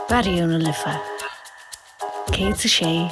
Raidió na Life 106.4.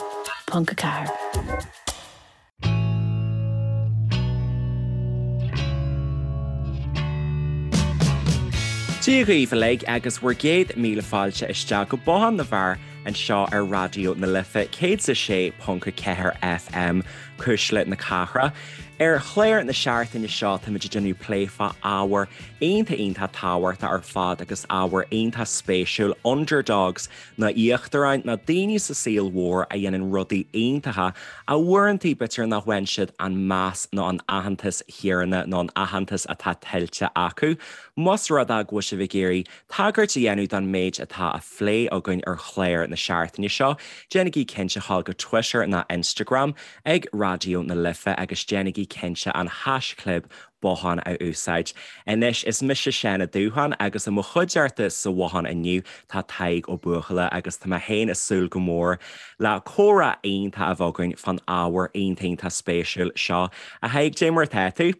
Dia dhaoibh uilig agus bhur gcéad míle fáilte isteach go Bothán na bhFear anseo ar Raidió na Life 106.4 FM, Cuisle na Cathrach. Ar chlár na seachtaine seo táimid ag déanamh plé fá ábhar iontach iontach tábhachtach ar fad agus ábhar iontach spéisiúil, underdogs nó íochtaráin nó daoine sa saol mhór a dhéanann rudaí iontacha ach uaireanta b'fhéidir nach bhfaigheann siad an meas nó an aitheantas chéanna nó an aitheantas atá tuillte acu. Más rud é go bhfuil sibh ag iarraidh tagairt a dhéanamh don méid atá á phlé againn ar chlár na seachtaine seo, déanaigí cinnte a ghabháil go Twitter nó Instagram ag Raidió na Life agus déanaigí cinnte an haischlib Bothán a úsáid. Anois, is mise Seán Ó Dúcháin agus i mo chuideachta sa bhothán inniu tá Tadhg Ó Buachalla agus tá mé féin ag súil go mór le comhrá iontach a bheith againn fán ábhar iontach iontach spéisiúil seo. A Thaidhg, cad é mar atá tú?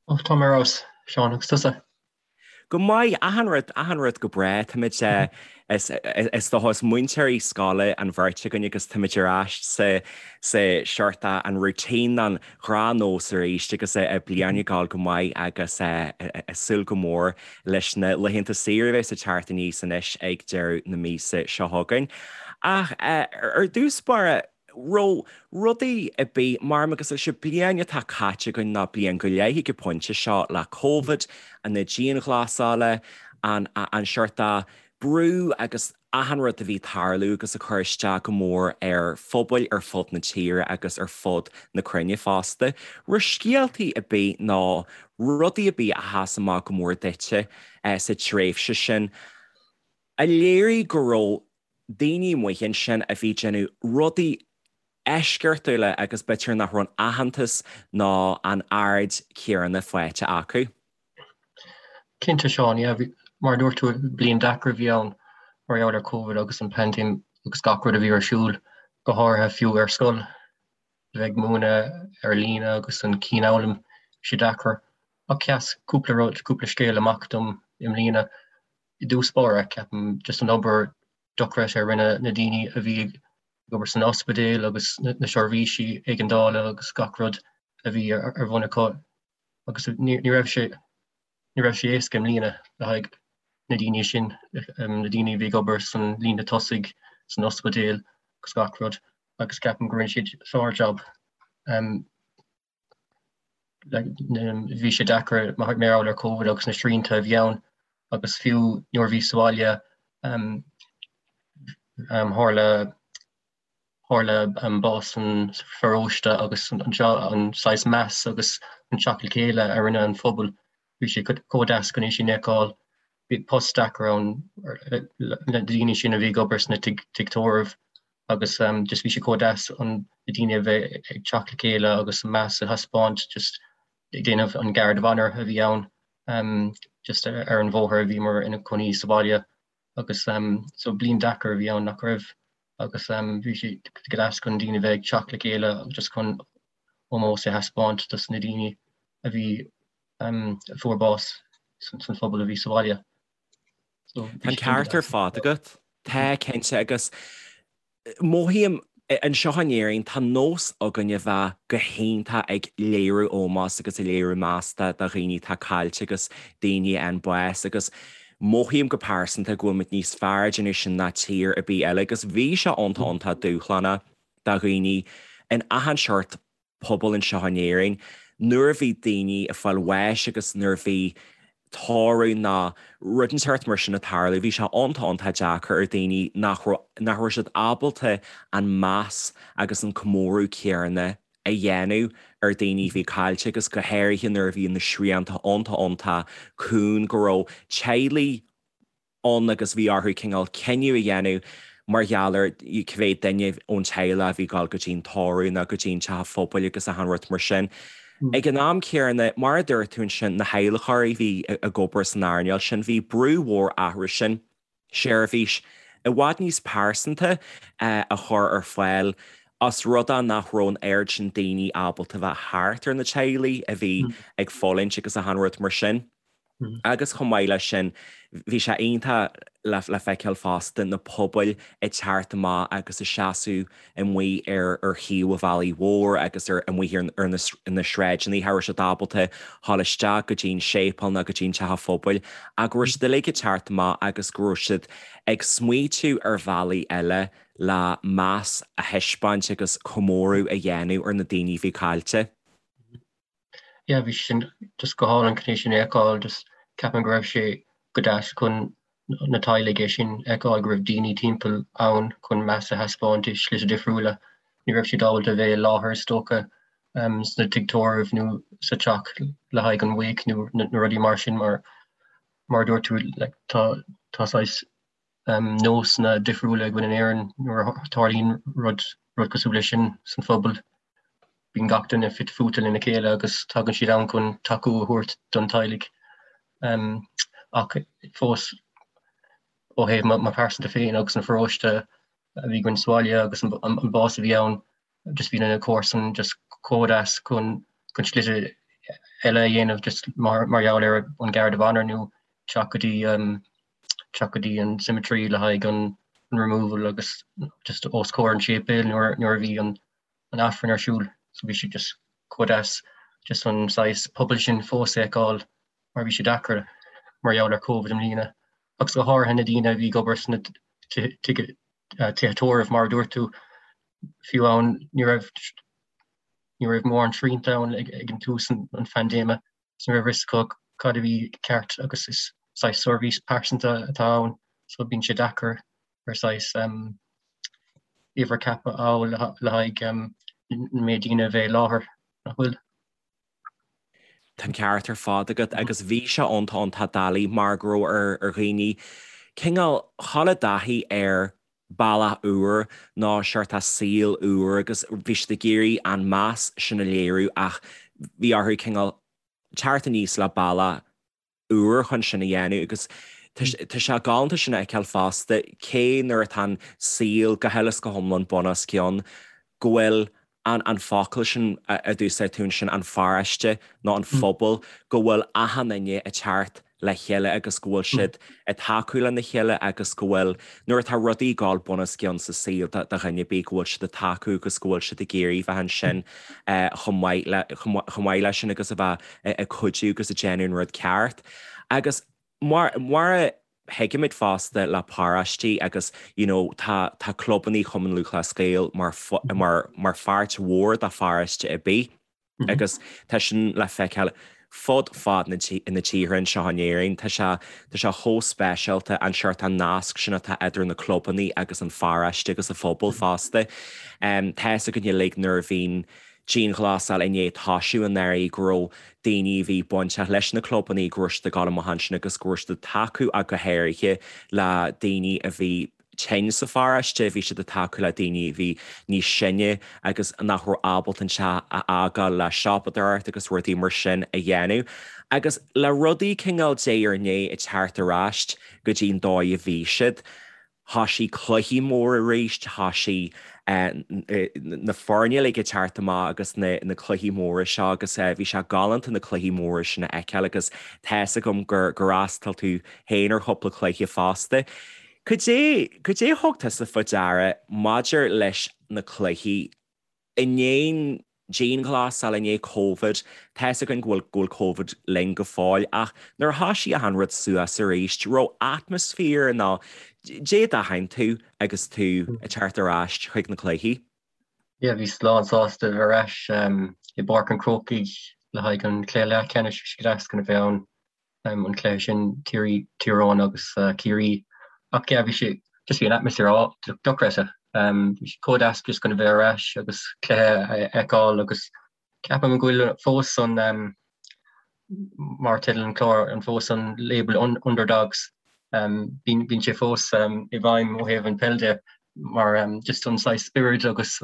Ó, tá mé ar fheabhas, Seán, agus tusa? Go maith, achan rud, achan rud go breá. Táimid, is, is dócha, is múinteoirí scoile an bheirt againn agus táimid ar ais sa, sa seort an routine, an ghnáthnós arís agus an bhliain ag gabháil go maith agus ag súil go mór leis na laethanta saoire a bheas ag teacht aníos anois ag deireadh na míosa seo chugainn. Ach ar dtús báire, raibh rudaí ar bith mar agus leis an bliain atá caite againn nó bliain go leith ag an bpointe seo le Covid, na dianghlasála, an an seort brú agus achan rud a bhí ag tarlú agus ag cur isteach go mór ar phobail ar fud na tíre agus ar fud na cruinne fosta. Raibh scéaltaí ar bith nó rudaí ar bith a sheas amach go mór duitse sa tréimhse sin a léirigh go raibh daoine amuigh ansin a bhí ag déanamh rudaí eisceachtúla agus b'fhéidir nach raibh an aitheantas ná an aird chéanna faighte acu. Cinnte, Seán, yeah, mar a dúirt tú, bliain deacair a bhí ann mar gheall ar Covid agus an paindéim agus gach rud a bhí ar siúl, go háirithe fiú ar scoil, a bheith ag múineadh ar líne agus an cianfhoghlaim, bhí sé deacair. Ach sheas cúpla rud, cúpla scéal amach dom i mbliana. I dtús báire, ceapaim, just an obair dochreidte a rinne na daoine a bhí ag obair san ospidéal agus na seirbhísí éigeandála agus gach rud a bhí ar bun acu agus ní raibh sé ní raibh sé éasca i mbliana le haghaidh na daoine sin, na daoine a bhí ag obair san líne tosaigh, san ospidéal agus gach rud agus ceapaim go rinne siad sár-jab. Bhí sé deacair mar gheall ar Covid agus na srianta a bhí ann agus fiú nuair a bhí sa bhaile tharla tharla bás an pharóiste agus an saghas meas agus an teacht le chéile a rinne an phobal, bhí sé chomh deas chun é sin a fheiceáil. Bhí post deacair ann na daoine sin a bhí ag obair sna tigh tórraimh agus just bhí sé chomh deas an na daoine a bheith ag teacht le chéile agus meas a thaispeáint just ag déanamh an guard of honour a bhí ann just ar an bhóthar a bhíomar ina cónaí sa bhaile agus so bliain deacair a bhí ann nach raibh agus bhí sé go deas chun daoine a bheith ag teacht le chéile just chun ómós a thaispeáint dos na daoine a bhí a fuair bás san phobal a bhí sa bhaile. So, Tá an ceart ar fad agat. Tá, cinnte, agus mothaím anseo in Éirinn, tá nós againn a bheith go hiontach ag léiriú ómós agus ag léiriú meas do dhaoine atá caillte agus daoine a fhaigheann bás agus mothaím go pearsanta go bhfuil muid níos fearr ag déanamh sin ná tír ar bith eile agus bhí sé iontach iontach dúshlánach do dhaoine in achan seort pobal anseo in Éirinn, nuair a bhí daoine ag fáil bháis agus nuair a bhí tórramh nó rud inteacht mar sin ag tarlú, bhí sé iontach iontach deacair ar daoine nach raibh, nach raibh siad ábalta an meas agus an comóradh céanna a dhéanamh ar daoine a bhí caillte agus go háirithe nuair a bhí na srianta iontach iontach cúng go raibh teaghlaigh ann agus bhí orthu cineál cinneadh a dhéanamh mar gheall ar cé mhéad duine ón teaghlach a bhí ag dul go dtí an tórramh nó go dtí an teach an phobail agus achan rud mar sin. Ag an am céanna, mar a dúirt tú ansin, na hadhlacóirí a bhí ag obair san earnáil sin, bhí brú mhór orthu sin seirbhís i bhfad níos pearsanta a chur ar fáil os rud é nach raibh an oiread sin daoine ábalta bheith thart ar na teaghlaigh a bhí ag fulaingt agus achan rud mar sin. Agus chomh maith leis sin, bhí sé iontach le feiceáil fosta na pobail ag teacht amach agus ag seasamh amuigh ar ar thaobh an bhealaigh mhóir agus ar amuigh ar na na sráideanna, cha raibh siad ábalta dhul isteach go dtí an séipéal ná go dtí an teach an phobail ach go raibh siad uilig ag teacht amach agus go raibh siad ag smaoitiú ar bhealaí eile le meas a thaispeáint agus comóradh a dhéanamh ar na daoine a bhí caillte. Yeah, bhí sin just go hálainn chun é sin a fheiceáil, just ceapaim go raibh sé go deas chun na teaghlaigh é sin a fheiceáil go raibh daoine timpeall ann chun meas a thaispeáint i slite difriúla. Ní raibh siad ábalta a bheith i láthair is dócha sna tigh tórraimh nó sa teach le haghaidh an wake nó na rudaí mar sin mar mar a dúirt tú like tá tá saghas nósanna difriúla againn in Éirinn nuair a tharlaíonn rud rud cosúil leis sin san phobal. Bíonn gach duine fite fuaite lena chéile agus tagann siad ann chun tacú a thabhairt don teaghlaigh. Ach fós ó thaobh mo pearsanta féin agus an pharóiste a bhí againn sa bhaile agus an bás a bhí ann, just bhí na comharsain just chomh deas chun chun slite eile a dhéanamh just mar mar gheall ar an Garda of Honour nó teacht go dtí teacht go dtí an cemetery le haghaidh an an removal agus just os comhair an séipéil nuair nuair a bhí an an Aifreann ar siúl so bhí sé just chomh deas just an saghas pobal sin fós a fheiceáil mar bhí sé deacair mar gheall ar Covid i mbliana agus go háirithe na daoine a bhí ag obair sna tithe tórraimh mar a dúirt tú, fiú ann ní raibh ní raibh mórán srianta ann ag ag an tús an an phaindéime so ní raibh a fhios acu cad a bhí ceart agus is saghas seirbhís pearsanta atá ann so bíonn sé deacair ar saghas um, uimhir ceaptha a fháil le le haghaidh um, an méid daoine a bheith i láthair nach bhfuil. Tá an ceart ar fad agat agus bhí sé iontach iontach doiligh mar go raibh ar ar dhaoine cineál dhul i dtaithí ar bealach úr nó seort saol úr agus bhí siad ag iarraidh an meas sin a léiriú ach bhí orthu cineál teacht aníos le bealach úr chun sin a dhéanamh agus tá sé galánta sin a fheiceáil fosta, cé nuair atá an saol go huile is go hiomlán bun os cionn, go bhfuil an an focal sin a d'úsáid tú ansin, an pharóiste nó an phobal, go bhfuil achan duine ag teacht le chéile agus go bhfuil siad ag tacú lena chéile agus go bhfuil, nuair atá rudaí ag dul bun os cionn sa saol do dhuine ar bith, go bhfuil siad ag tacú agus go bhfuil siad ag iarraidh bheith ansin chomh maith le, chomh maith leis sin agus a bheith ag cuidiú agus ag déanamh an rud ceart. Agus mar, mar a thuigimid fosta le paróistí agus you know tá, tá clubannaí Chumann Lúthchleas Gael mar, mar, mar pháirt mhór de pharóiste ar bith agus tá sin le feiceáil fud fad na, na tíre anseo in Éirinn. Tá sé, tá sé chomh speisialta an seort an nasc sin atá idir na clubannaí agus an pharóiste agus an phobal fosta. Tá fhios againn uilig nuair a bhíonn dianghlasáil i ndiaidh toisiú anuraidh go raibh daoine a bhí bainteach leis na clubannaí go raibh siad ag dul amach ansin agus go raibh siad ag tacú ach go háirithe le daoine a bhí tinn sa pharóiste, bhí siad ag tacú le daoine a bhí níos sine agus nach raibh ábalta an teach a fhágáil le siopadóireacht agus rudaí mar sin a dhéanamh. Agus le rudaí cineál diaidh ar ndiaidh ag teacht ar ais go dtí an dóigh a bhí siad, Thoisigh cluichí móra arís, thoisigh na foirne uilig ag teacht amach agus na cluichí móra seo agus bhí sé galánta na cluichí móra sin a fheiceáil agus tá fhios agam gur fhreastail tú féin ar chúpla cluiche fosta. Cad é, cad é a thug tusa faoi deara maidir leis na cluichí I ndiaidh an dianghlasáil, i ndiaidh Covid, tá fhios againn go bhfuil go bhfuil Covid linn go fóill ach nuair a thoisigh achan rud suas arís, raibh atmaisféar nó caidé a d'aithin tú agus tú ag teacht ar ais chuig na cluichí? Yeah, bhíos lán sásta a bheith ar ais i bPáirc an Chrócaigh le haghaidh an chluiche leathcheannais, bhí sé go deas chun a bheith ann. an cluiche sin, Tír Eoghain agus Ciarraí. Ach yeah, bhí sé, just bhí an atmaisféar dochreidte. Bhí sé chomh deas just chun a bheith ar ais agus cluiche a fheiceáil agus ceapaim go bhfuil fós an, mar teideal an chláir, an fós an label underdogs, bíonn sé fós i bhfeidhm ó thaobh an peil de mar just an saghas spiorad agus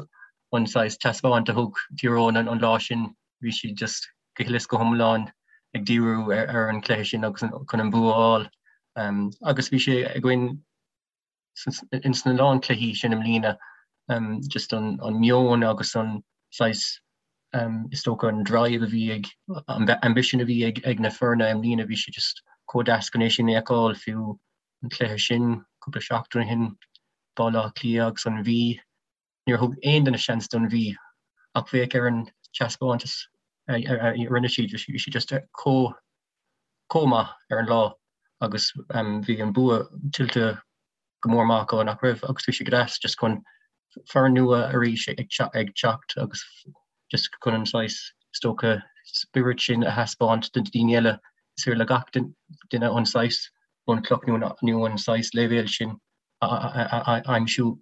an saghas taispeáint a thug Tír Eoghain an lá sin, bhí siad just go huile is go hiomlán ag díriú ar an chluiche sin agus chun an bua a fháil. Agus bhí sé againn ins na lán cluichí sin i mbliana, just an meon agus an saghas, is dócha an drive a bhí ag, an ambition a bhí ag na foirne i mbliana, bhí sé just. chomh deas chun é sin a fheiceáil, fiú an cluiche sin cúpla seachtain ó shin, Baile Átha Cliath agus an Mhí. Níor thug aon duine seans don Mhí ach féach ar an taispeántas a rinne siad, bhí siad just chomh chomh maith ar an lá agus bhí an bua tuillte go mór maith acu nach raibh agus bhí sé go deas just chun foireann nua arís ag teacht agus just chun an saghas is dócha spiorad sin a thaispeáint do daoine eile. Is féidir le gach duine an saghas bunchloch nó an saghas leibhéal sin a aimsiú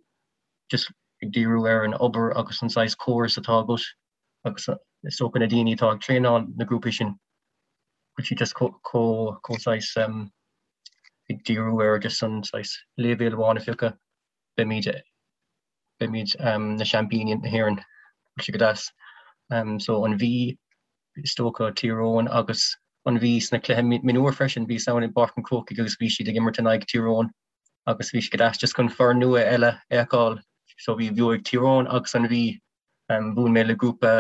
just ag díriú ar an obair agus an saghas córas atá agat agus is dócha na daoine atá ag traenáil na grúpaí sin bhfuil siad just chomh saghas ag díriú ar just an saghas leibhéal amháin a phiocadh, beimid beimid na seaimpíní na hÉireann, bhfuil sé go deas. So an Mhí is dócha Tír Eoghain agus an Mhí sna cluiche mionúir freisin, bhíos ann i bPáirc an Chrócaigh agus bhí siad ag imirt in aghaidh Tír Eoghain agus bhí sé go deas just chun foireann nua eile a fheiceáil. So bhí bhuaigh Tír Eoghain agus an Mhí. Bhuail mé le grúpa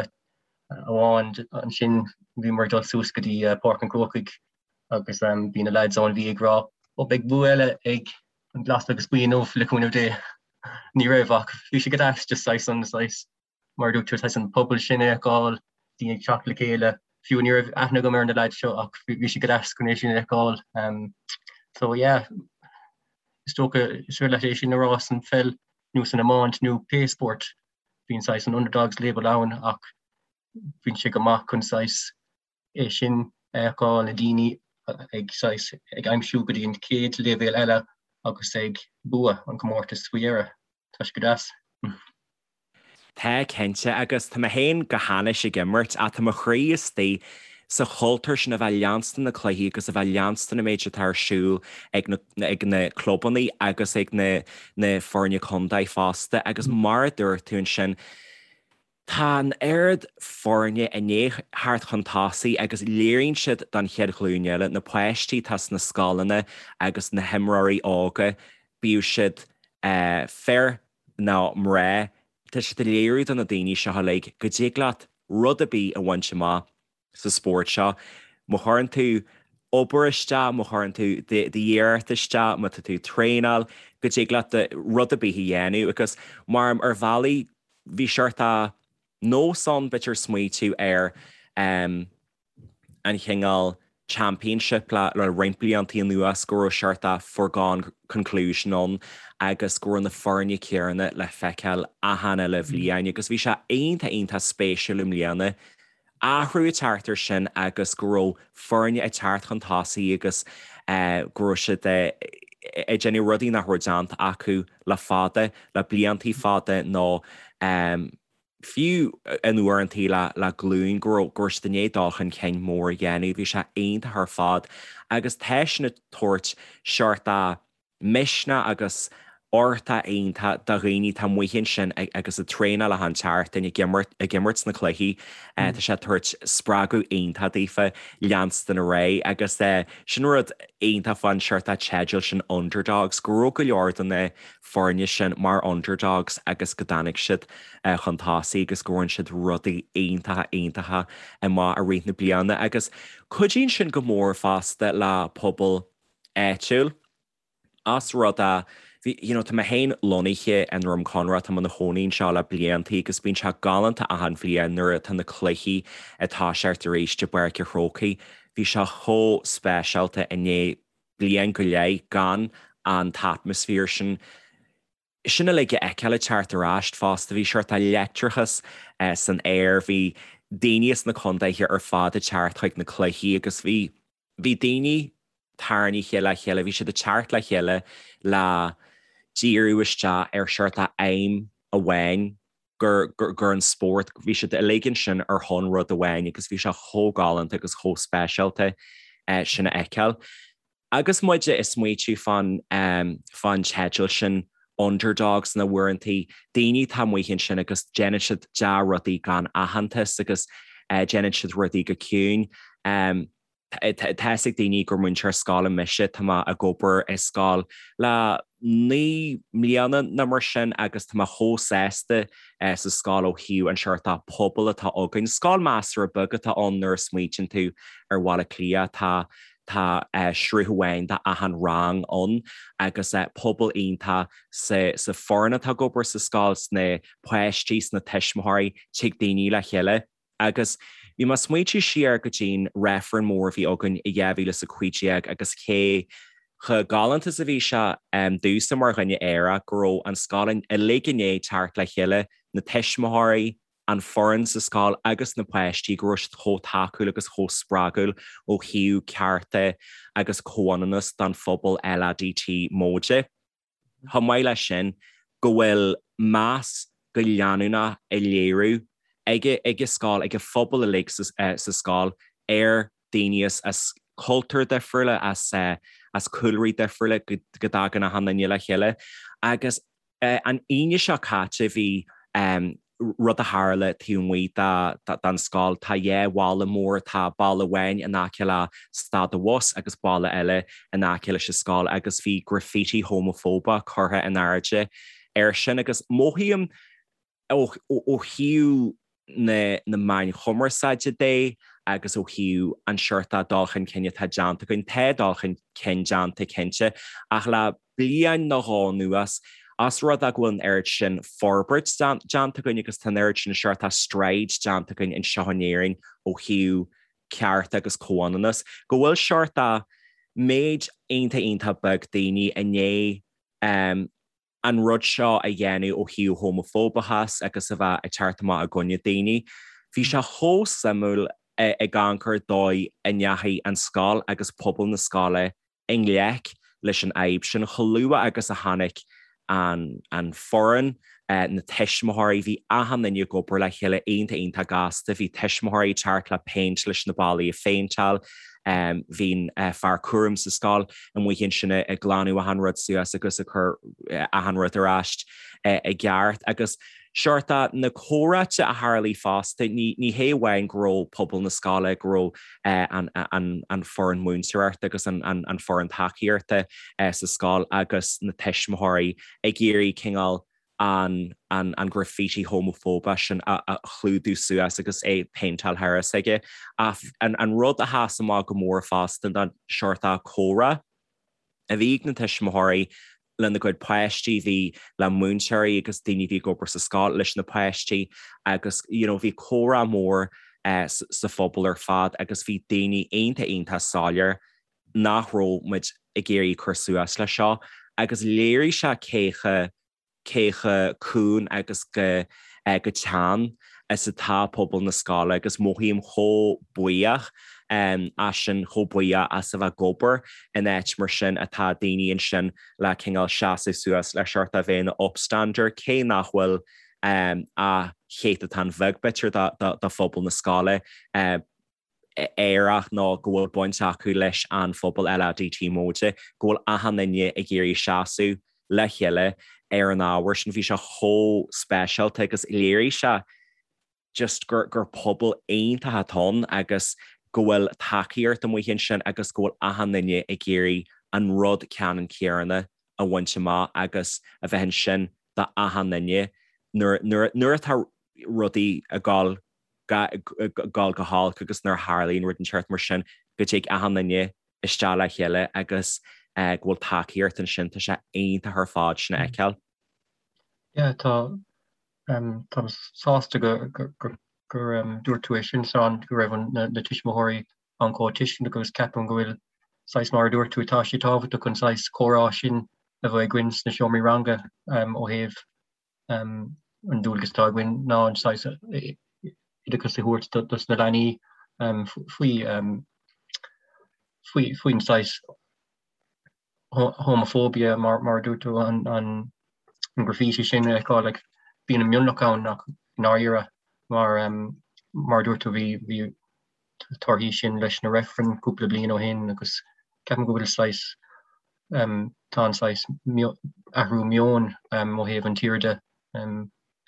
amháin ansin bhíomar ag dul suas go dtí Páirc an Chrócaigh agus bhí na lads ón Mhí ag rá ó beidh bua eile ag an Glas agus Buí inniu le cúnamh Dé. Ní raibh ach bhí sé go deas just saghas an saghas mar a dúirt tú, saghas an pobal sin a fheiceáil, daoine ag teacht le chéile. Fiú ní raibh aithne agam ar na lads seo ach bhí sé go deas chun é sin a fheiceáil. So yeah, is dócha is féidir leat é sin a rá san pheil nó san iomáint nó pé spórt. Bíonn saghas an underdogs label ann ach bíonn sé go maith chun saghas é sin a fheiceáil, na daoine ag saghas ag aimsiú go dtí an chéad leibhéal eile agus ag bua an comórtas faoi dheireadh. Tá sé go deas. Tá, cinnte, agus tá mé féin go hainnis ag imirt ach tá mo chroí istigh sa chultúr sin a bheith leanstan na cluichí agus a bheith leanstan an méid atá ar siúl ag na ag na clubannaí agus ag na na foirne contae fosta agus mar a dúirt tú ansin tá an oiread foirne i ndiaidh theacht chun tosaigh agus léiríonn siad don chéad ghlúin eile, na páistí atá sna scoileanna agus na himreoirí óga, bíodh siad fir nó mná, tá siad ag léiriú do na daoine seo uilig go dtig leat rud ar bith a bhaint amach sa spórt seo. Má chuireann tú obair isteach, má chuireann tú d'iarracht isteach, má tá tú ag traenáil, go dtig leat rud ar bith a dhéanamh. Agus mar ar bhealaí bhí seort nós ann, b'fhéidir smaoitiú ar an chineál championship le roinnt blianta anuas go raibh seort de foregone conclusion ann agus go raibh na foirne céanna le feiceáil achan uile bhliain agus bhí sé iontach iontach spéisiúil i mbliana athrú ag teacht air sin agus go raibh foirne ag teacht chun tosaigh agus go raibh siad ag déanamh rudaí nach raibh déanta acu le fada, le bliantaí fada nó fiú in uaireantaí le glúin go raibh go raibh siad i ndiaidh dul chun cinn mór a dhéanamh. Bhí sé iontach ar fad agus tá sin ag tabhairt seort de misneach agus uchtach iontach do dhaoine atá amuigh ansin agus ag traenáil achan tseachtain, ag imirt, ag imirt sna cluichí. Tá sé ag tabhairt spreagadh iontach daofa leanstan ar aghaidh agus sin rud iontach fán seort de teideal sin Underdogs, go raibh go leor de na foirne sin mar underdogs agus go dtáinig siad chun tosaigh agus go bhfuair siad rudaí iontacha iontacha amach i rith na bliana agus cuidíonn sin go mór fosta le pobal áitiúil. Ós rud é, bhí, you know, tá mé féin lonnaithe i nDroim Conrach, tá mé i mo chónaí anseo le bliantaí agus bíonn sé galánta achan bhliain nuair atá na cluichí ag toiseacht arís i bPáirc an Chrócaigh. Bhí sé chomh speisialta i ndiaidh bliain go leith gan an t-atmaisféar sin, sin uilig a fheiceáil ag teacht ar ais fosta. Bhí seort de leictreachas san aer, bhí daoine as na contaetha ar fad ag teacht chuig na cluichí agus bhí, bhí daoine tarraingthe le chéile, bhí siad ag teacht le chéile le díriú isteach ar seort de aidhm amháin gur, gur, gur an spórt, bhí siad uilig ansin ar shon rud amháin agus bhí sé chomh galánta agus chomh speisialta sin a fheiceáil. Agus muid ag smaoitiú fán, fán teideal sin underdogs na uaireantaí, daoine atá amuigh ansin agus déanann siad dea-rudaí gan aitheantas agus déanann siad rudaí go ciúin. Tá fhios ag daoine gur múinteoir scoile mise, tá mé ag obair i scoil le 9 mbliana nó mar sin agus tá mé chomh sásta sa scoil ó thaobh an seort de pobal atá againn. Scoil measartha beag atá ann nuair a smaoitíonn tú ar Bhaile Átha Cliath. Tá. Tá sruth amháin d'achan rang ann agus pobal iontach sa sa foireann atá ag obair sa scoil, sna páistí, sna tuismitheoirí, tig daoine le chéile. Agus bhí mé ag smaointiú siar go dtí'n reifreann mór a bhí againn i 2015 agus cé chomh galánta is a bhí sé domhsa mar dhuine aerach go raibh an scoil uilig i ndiaidh teacht le chéile, na tuismitheoirí, an foireann sa scoil agus na páistí, go raibh siad chomh tacúil agus chomh spreagúil ó thaobh cearta agus comhionannas don phobal LADT móide. Chomh maith leis sin, go bhfuil meas go leanúnach á léiriú ag ag an scoil, ag an phobal uilig sa scoil ar daoine as cultúir difriúla, as cúlraí difriúla, go dtagann achan duine le chéile. Agus An Aoine seo caite bhí rud a tharla taobh amuigh den scoil. Tá dhá bhalla mór, tá balla amháin in aice le stad an bhus agus balla eile in aice leis an scoil agus bhí graffiti homafóbach curtha in airde air sin agus mothaím ó thaobh na meáin chumarsáide de agus ó thaobh an seort dul chun cinn atá déanta againn, tá dul chun cinn déanta cinnte, ach le bliain nó dhó anuas, os rud é go bhfuil an oiread sin forbairt déanta againn agus tá an oiread sin seort stride déanta againn anseo in Éirinn ó thaobh cearta agus comhionannas, go bhfuil seort méid iontach iontach beag daoine i ndiaidh an rud seo a dhéanamh ó thaobh homafóbachas agus a bheith ag teacht amach i gcoinne daoine. Bhí sé chomh suimiúil ag amharc ar dóigh a ndeachaigh an scoil agus pobal na scoile i ngleic leis an fhadhb sin chomh luath agus a tháinig an an foireann, na tuismitheoirí, bhí achan duine ag obair le chéile iontach iontach gasta, bhí tuismitheoirí ag teacht le péint leis na ballaí a phéinteáil, Bhí an fear cúraim sa scoil amuigh ansin ag glanadh achan rud suas agus ag cur achan rud ar ais i gceart. Agus seort na comhráite a tharlaigh fosta, ní hé amháin go raibh pobal na scoile, go raibh an foireann múinteoireachta agus an foireann tacaíochta sa scoil agus na tuismitheoirí ag iarraidh cineál an an graffiti homafóbach sin a chlúdú suas agus é péinteáil thar a aige. Ach an rud a sheas amach go mór fosta ná seort comhrá a bhí ag na tuismitheoirí lena gcuid páistí, bhí le múinteoirí agus daoine a bhí ag obair sa scoil leis na páistí agus you know bhí comhrá mór sa phobal ar fad agus bhí daoine iontach iontach soiléir nach raibh muid ag iarraidh cur suas leis seo agus léirigh sé cé chomh cé chomh cúng agus go go teann is atá pobal na scoile agus mothaím chomh buíoch as sin, chomh buíoch as a bheith ag obair in áit mar sin atá daoine ansin le cineál seasamh suas le seort a bheith ina upstander cé nach bhfuil ach céatadán bheag b'fhéidir de phobal na scoile. aerach nó go bhfuil baint acu leis an phobal LADT móide, go bhfuil achan duine ag iarraidh seasamh le chéile ar an ábhar sin. Bhí sé chomh speisialta agus léirigh sé just gur gur pobal iontach atá ann agus go bhfuil tacaíocht amuigh ansin agus go bhfuil achan duine ag iarraidh an rud ceannann céanna a bhaint amach agus a bheith ansin do achan duine nuair nuair nuair atá rudaí ag dul dul go holc agus nuair a tharlaíonn rud inteacht mar sin go dtig achan duine isteach le chéile agus go bhfuil tacaíocht ansin, tá sé iontach ar fad sin a fheiceáil. Yeah, tá táim sásta go gur gur dúirt tú é sin Seán, go raibh na tuismitheoirí an chomh tuisceanach agus ceapaim go bhfuil saghas mar a dúirt tú tá sé tábhachtach an saghas comhrá sin a bheith againn sna seomraí ranga ó thaobh an dualgas atá againn ná an saghas oideachas a thabhairt dos na leanaí faoi faoi faoin saghas homophobia mar mar a dúirt tú an an graffiti sin a fheiceáil like bíonn an mionlach ann ach i ndáiríre mar mar a dúirt tú bhí bhí torthaí sin leis na reifrinn cúpla bliain ó shin agus ceapaim go bhfuil saghas tá an saghas athrú meoin ó thaobh an tíre de.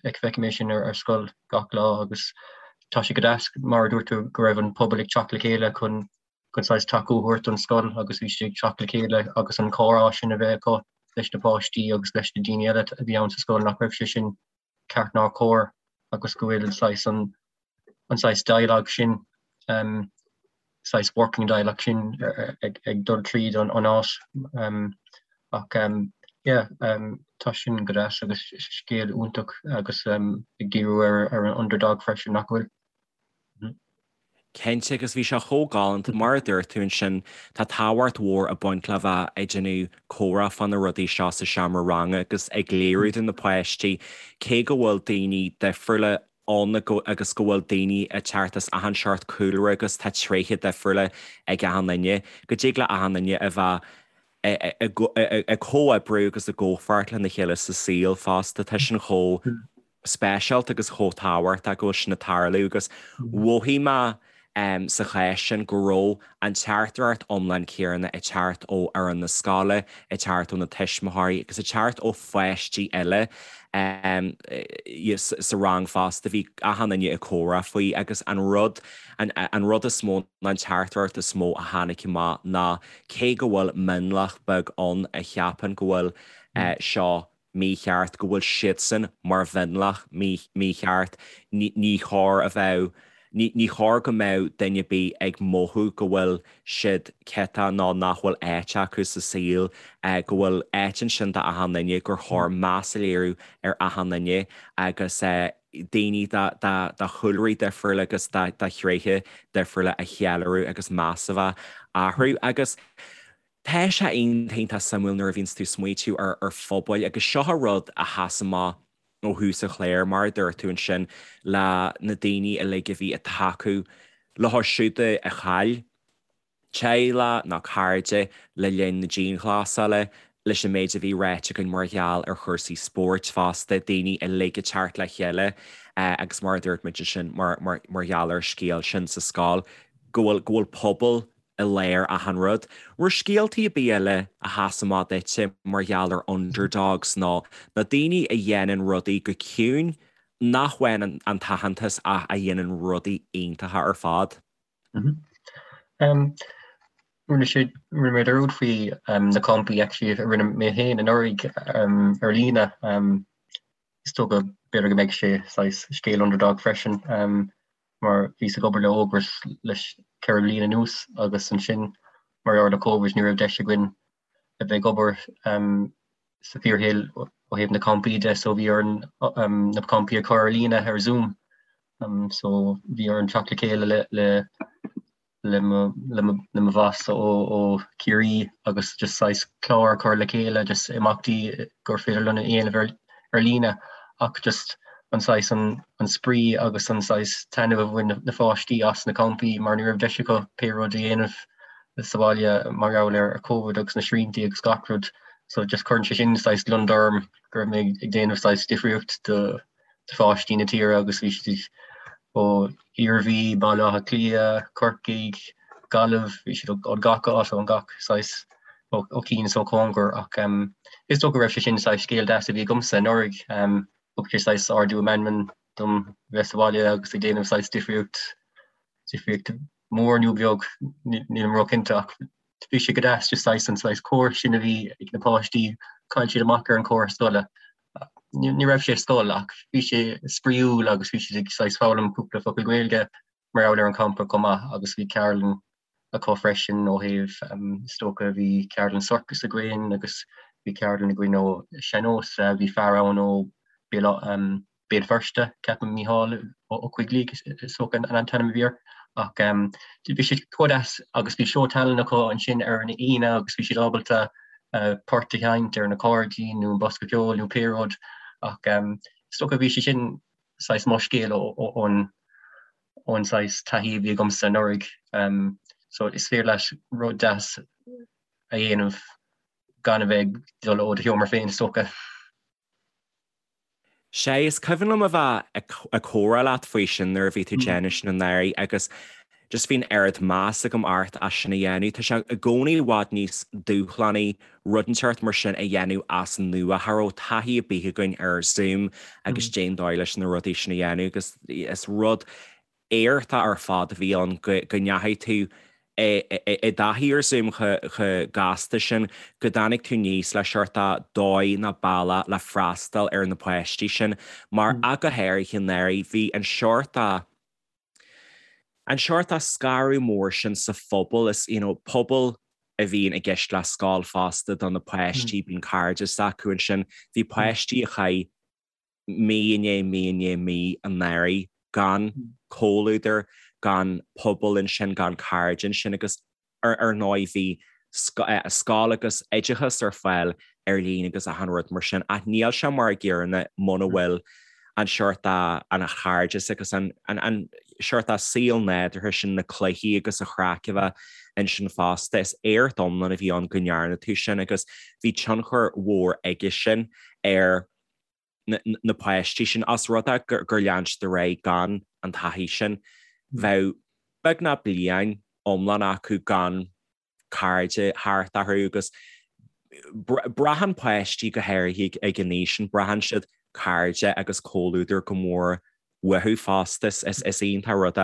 Feicim é sin ar scoil gach lá agus tá sé go deas mar a dúirt tú go raibh an pobal ag teacht le chéile chun chun saghas tacú a thabhairt don scoil agus bhí siad ag teacht le chéile agus an comhrá sin a bheith acu leis na páistí agus leis na daoine eile a bhí ann sa scoil nach raibh sé sin ceart ná cóir agus go bhfuil saghas an an saghas dialogue sin. saghas working dialect sin ag dul tríd an áit ach yeah tá sin go deas agus scéal iontach agus ag díriú ar an underdog freisin nach bhfuil? Cinnte, agus bhí sé chomh galánta, mar a dúirt tú ansin, tá tábhacht mhór ag baint le bheith ag déanamh comhrá fá na rudaí seo sa seomra ranga agus ag léiriú do na páistí cé go bhfuil daoine difriúla ann agus go bhfuil daoine ag teacht as achan seort cúlra agus tá tréithe difriúla ag achan duine, go dtig le achan duine a bheith ag comhoibriú agus i gcomhpháirt lena chéile sa saol fosta. Tá sin chomh speisialta agus chomh tábhachtach go bhfuil sin ag tarlú agus mhothaigh mé sa chás sin go raibh an teachtaireacht iomlán céanna ag teacht ó fhoireann na scoile, ag teacht ó na tuismitheoirí agus ag teacht ó pháistí eile sa rang fosta. Bhí achan duine ag comhrá faoi agus an rud, an rud is mó ná an teachtaireacht is mó a tháinig amach ná cé go bhfuil mionlach beag ann a cheapann go bhfuil seo mícheart, go bhfuil siadsan mar mhionlach mícheart, ní chóir a bheith, ní chóir go mbeadh duine ar bith ag mothú go bhfuil siad ciotach nó nach bhfuil áit acu sa saol, go bhfuil áit ansin d'achan duine, gur chóir meas a léiriú ar achan duine agus daoine de chúlraí difriúla agus de thréithe difriúla a cheiliúradh agus meas a bheith orthu. Agus tá sé iontach iontach suimiúil nuair a bhíonns tú ag smaoitiú ar phobail agus seo an rud a sheas amach ó thús an chláir, mar a dúirt tú ansin, le na daoine uilig a bhí ag tacú leo siúd a chaill teaghlach nó cairde le linn na dianghlasála, leis an méid a bhí ráite againn mar gheall ar chúrsaí spóirt fosta, daoine uilig ag teacht le chéile agus mar a dúirt muid ansin mar gheall ar an scéal sin sa scoil, go bhfuil go bhfuil pobal i lár achan rud. Raibh scéaltaí ar bith eile a sheas amach duitse mar gheall ar underdogs nó na daoine a dhéanann rudaí go ciúin nach bhfaigheann an t-aitheantas ach a dhéanann rudaí iontacha ar fad? Rinne sé rinne mé dearúd faoi na campaí actually a rinne mé féin anuraidh ar líne. Is dócha b'fhéidir go mbeidh sé saghas scéal underdog freisin mar bhíos ag obair le Ógras leis 4 bliain anuas agus ansin mar gheall ar Covid ní raibh deis againn a bheith ag obair sa fíorshaol ó thaobh na campaí de so bhí orainn na campaí a chur ar líne ar Zoom. So bhí orainn teacht le chéile le le le mo le mo le mo bhoss ó ó Ciarraí agus just saghas clár a chur le chéile just imeachtaí gur féidir linn a dhéanamh ar ar líne ach just an saghas an an spraoi agus an saghas taitneamh a bhain na pháistí as na campaí mar ní raibh deis acu pé rud a dhéanamh sa bhaile mar gheall ar Covid agus na sriantaí agus gach rud so just cuireann sé sin saghas gliondar orm go raibh mé ag déanamh saghas difríocht do pháistí na tíre agus bhí siad ó Iarmhí, Baile Átha Cliath, Corcaigh, Gaillimh, bhí siad ó gach áit ó gach saghas ó chian is ó chóngar ach is dócha go raibh sé sin saghas scéal deas a bhí agamsa anuraidh. Thug sé saghas ardú meanman dom bheith sa bhaile agus ag déanamh saghas difríocht difríocht mór nó beag, nílim róchinnte ach bhí sé go deas just saghas an saghas comhar sin a bhí ag na páistí, chaill siad amach ar an chomhar scoile. Ní raibh sé scoil ach bhí sé spraíúil agus bhí siad ag saghas foghlaim cúpla focal Gaeilge mar gheall ar an champa chomh maith agus bhí ceardlann acu freisin ó thaobh is dócha bhí ceardlann sorcas againn agus bhí ceardlann againn ó sean-nós, bhí fear ann ó Béal Béal Feirste, ceapaim Mícheál Ó Coigligh is dócha an t-ainm a bhí air. Ach bhí sé chomh deas agus bhí seó tallainne acu ansin ar an Aoine agus bhí siad ábalta port a sheinnt ar an accordion nó an bosca ceoil nó pé rud ach is dócha bhí sé sin saghas mo scéal ón ón saghas taithí a bhí agamsa anuraidh. So is féidir leat rud deas a dhéanamh gan a bheith ag dul ó do sheomra féin is dócha. Sea, is cuimhin liom a bheith ag comhrá leat faoi sin nuair a bhí tú ag déanamh sin anuraidh agus just bhí an oiread meas agam ort as sin a dhéanamh. Tá sé i gcónaí i bhfad níos dúshlánaí rud inteacht mar sin a dhéanamh as an nua. Cha raibh taithí ar bith againn ar Zoom agus cén dóigh leis na rudaí sin a dhéanamh agus is rud éachtach ar fad a bhí ann go ndeachaigh tú i dtaithí ar Zoom chomh gasta sin, go dtáinig tú aníos le seort dóigh nó bealach le freastal ar na páistí sin. Mar ach go háirithe anuraidh, bhí an seort. an seort scaradh mór sin sa phobal, is you know pobal a bhíonn i gceist le scoil fosta do na páistí, bíonn cairdeas acu ansin. Bhí páistí a chaith mí i ndiaidh mí i ndiaidh mí anuraidh gan comhluadar, gan pobal ansin, gan cairde ansin agus ar ndóigh bhí scoil agus oideachas ar fáil ar líne agus achan rud mar sin ach níl sé mar a gcéanna muna bhfuil an seort an chairdeas agus an seort saol nádúrtha sin, na cluichí agus an chraic a bheith ansin fosta. Is éacht iomlán a bhí ann go ndearna tú sin agus bhí tionchar mhór aige sin ar na páistí sin. Os rud é gur lean siad ar aghaidh gan an taithí sin, bheadh beagnach bliain iomlán acu gan cairde thart orthu agus braitheann páistí go háirithe ag an aois sin, braitheann siad cairde agus comhluadar go mór uathu fosta. Is iontach rud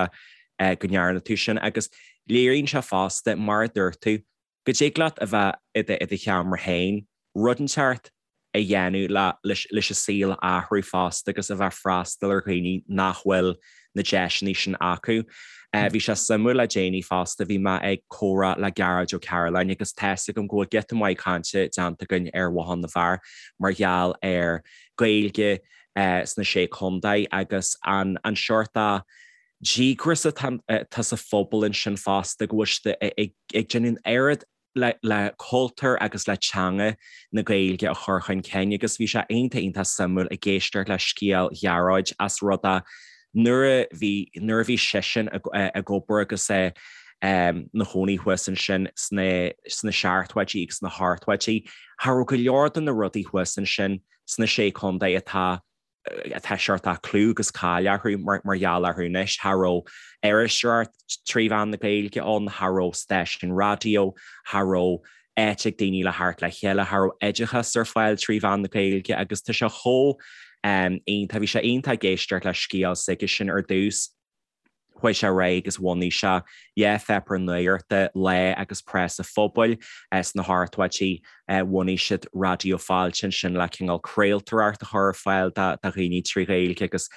é go ndearna tú sin agus léiríonn sé fosta, mar a dúirt tú, go dtig leat a bheith i do sheomra féin, rud inteacht a dhéanamh leis an saol a athrú fosta agus a bheith ag freastal ar dhaoine nach bhfuil na deiseanna sin acu. Bhí sé suimiúil le déanaí fosta, bhí mé ag comhrá le Gearóid Ó Cairealláin agus tá's agam go bhfuil giota maith cainte déanta againn ar Bhothán na bhFear mar gheall ar Gaeilge sna Sé Chontae agus an seort díograis atá sa phobal ansin fosta go bhfuil siad ag déanamh an oiread le cultúr agus le teanga na Gaeilge a chur chun cinn agus bhí sé iontach iontach suimiúil ag éisteacht le scéal Ghearóid as rud é nuair a bhí nuair a bhí seisean ag obair agus é ina chónaí thuas ansin sna sna seachtóidí agus sna hochtóidí cha raibh go leor de na rudaí thuas ansin sna Sé Chontae atá atá seort clú agus cáil orthu mar gheall orthu anois. Cha raibh iriseoireacht trí mheán na Gaeilge ann, cha raibh stáisiún raidió, cha raibh áit ag daoine le theacht le chéile, cha raibh oideachas ar fáil trí mheán na Gaeilge agus tá sé chomh iontach, bhí sé iontach ag éisteacht le scéal s'aigesean ar dtús. Chuaigh sé ar aghaidh agus bhunaigh sé dhá pháipéar nuachta, Lá agus Preas an Phobail, sna hochtóidí. Bhunaigh siad Raidió Fáilte ansin le cineál craoltóireacht a chur ar fáil do dhaoine trí Ghaeilge agus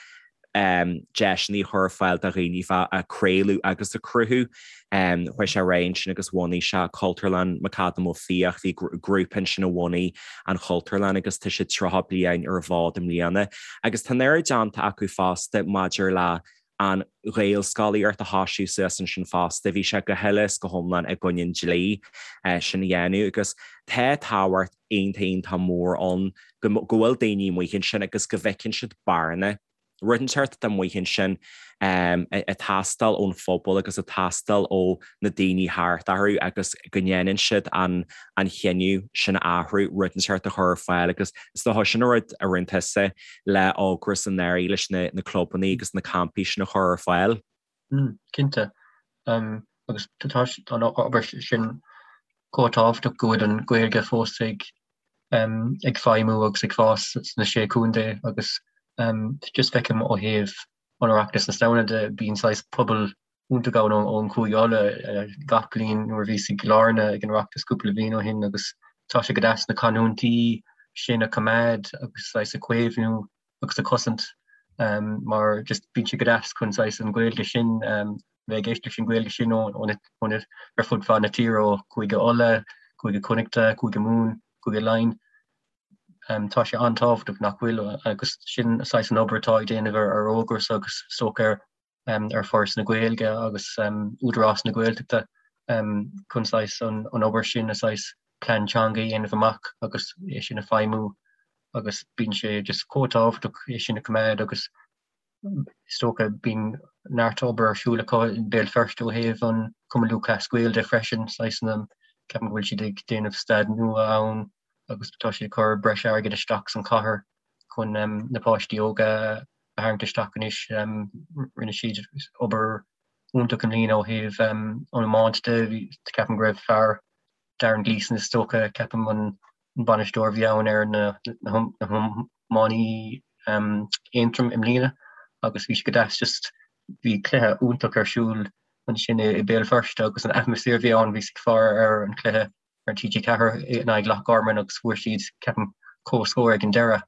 deiseanna a chur ar fáil do dhaoine bheith ag craoladh agus ag cruthú. Chuaigh sé ar aghaidh ansin agus bhunaigh sé Cultúrlann McAdam Ó Fiaich. Bhí grúpa ansin a bhunaigh an Chultúrlann agus tá siad 30 bliain ar an bhfód i mbliana. Agus tá an oiread déanta acu fosta maidir le an Ghaelscolaíocht a thoisiú suas ansin fosta. Bhí sé go huile is go hiomlán i gcoinne an dlí sin a dhéanamh agus tá tábhacht iontach iontach mór ann go bhfuil daoine amuigh ansin agus go bhfeiceann siad bearna, rud inteacht atá amuigh ansin ag teastáil ón phobal agus ag teastáil ó na daoine thart orthu agus go ndéanann siad an chinneadh sin a athrú, rud inteacht a chur ar fáil agus is dócha sin an rud a rinne tusa le Ógras anuraidh leis na clubanna agus na campaí sin a chur ar fáil. Cinnte. Agus tá an obair sin chomh tábhachtach go bhfuil an Ghaeilge fós ag ag feidhmiú agus ag fás sna Sé Chontae agus just feicim ó thaobh an Oireachtas na Samhna de, bíonn saghas pobal iontach ann ón Chúige Uladh gach bliain nuair a bhíos i gCill Airne ag an Oireachtas cúpla bliain ó shin agus tá sé go deas na canúintí sin a choimeád agus saghas a chaomhnú agus a chosaint mar just bíonn sé go deas chun saghas an Ghaeilge sin bheith ag éisteacht leis an Ghaeilge sin ó ó ar fud fad na tíre ó Chúige Uladh, Cúige Connachta, Cúige Mumhan, Cúige Laighean. Tá sé an-tábhachtach nach bhfuil agus sin saghas an obair atá ag déanamh ar Ógras agus is dócha ar ar Foras na Gaeilge agus Údarás na Gaeltachta chun saghas an obair sin a saghas plean teanga a dhéanamh amach agus é sin a feidhmiú agus bíonn sé just chomh tábhachtach é sin a choimeád agus is dócha bíonn neart obair ar siúl acu i mBéal Feirste ó thaobh an Cumann Lúthchleas Gael de freisin, saghas na, ceapaim go bhfuil siad ag déanamh staid nua ann agus tá siad ag cur breis airgid isteach san chathair chun na páistí óga a tharraingt isteach anois. Rinne siad obair iontach i mbliana ó thaobh an iomáint de. Ceapaim go raibh fear Darren Gleeson is dócha, ceapaim an bainisteoir a bhí ann ar na hiománaí Aontroim i mbliana agus bhí sé go deas just bhí cluiche iontach ar siúl ansin i Béal Feirste agus an atmaisféar a bhí ann, bhíos ag faire ar an chluiche ar TG4 in aghaidh Loch Garman agus fuair siad, ceapaim, comhscór ag an deireadh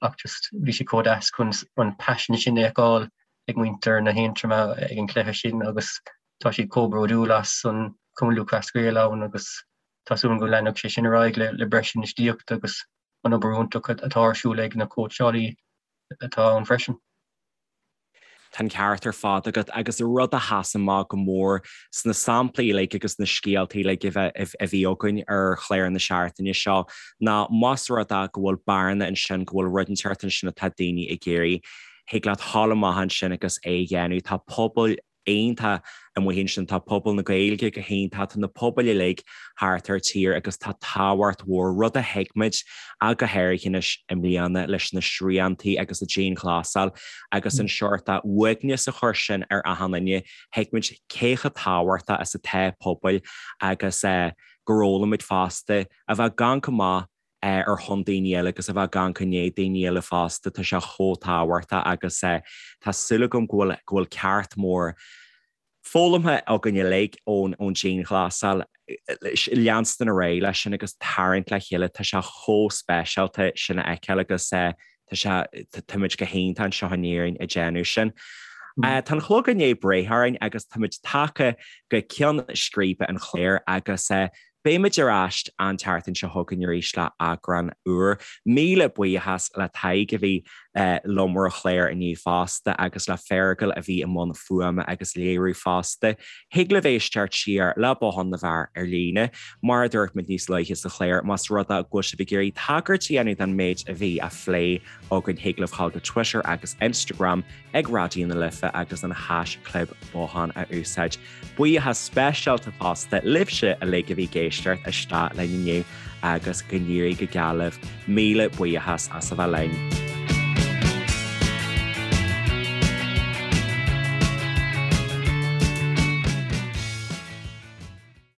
ach just bhí sé chomh deas chun an paisean sin a fheiceáil. ag muintir na hAontroma ag an chluiche sin agus tá siad chomh bródúil as an Cumann Lúthchleas Gael ann agus tá súil agam go leanfadh sé sin ar aghaidh le breis infheistíochta agus an obair iontach atá ar siúl ag na cóitseálaí atá ann freisin. Tá an ceart ar fad agat agus rud a sheas amach go mór sna samplaí uilig agus na scéaltaí uilig a bhí againn ar chlár na seachtaine seo ná más rud é go bhfuil bearna ansin, go bhfuil rud inteacht ansin atá daoine ag iarraidh, thig leat dhul amach ansin agus é a dhéanamh. Tá pobail iontach amuigh ansin, tá pobal na Gaeilge go hiontach, tá na pobail uilig thart ar tír agus tá tábhacht mhór, rud a thuig muid ach go háirithe anois i mbliana leis na sriantaí agus an dianghlasáil agus an seort uaigneas a chuir sin ar achan duine, thuig muid cé chomh tábhachtach is atá pobail agus gur fhoghlaim muid fosta a bheith ag amharc amach ar shon daoine eile agus a bheith ag amharc i ndiaidh daoine eile fosta, tá sé chomh tábhachtach agus tá súil agam go bhfuil go bhfuil ceacht mór foghlamtha againn uilig ón ón dianghlasáil, leanstan ar aghaidh leis sin agus tarraingt le chéile, tá sé chomh speisialta sin a fheiceáil agus tá sé táimid go hiontach anseo in Éirinn ag déanamh sin. Tá an clog i ndiaidh breith orainn agus táimid tagtha go ceann scríbe an chláir agus Beimid ar ais an tseachtain seo chugainn arís le eagrán úr. Míle buíochas le Tadhg a bhí liom ar an chlár inniu fosta agus le Feargal a bhí i mbun fuaime agus léiriú fosta. Thig libh éisteacht siar le Bothán na bhFear ar líne. Mar a dúirt muid níos luaithe sa chlár, más rud é go bhfuil sibh ag iarraidh tagairt a dhéanamh don méid a bhí á phlé againn thig libh dhul go Twitter agus Instagram ag Raidió na Life agus an haischlib Bothán a úsáid. Buíochas speisialta fosta libhse uilig a bhí ag éisteacht isteach linn inniu agus go n-éirí go geal libh. Míle buíochas as a bheith linn.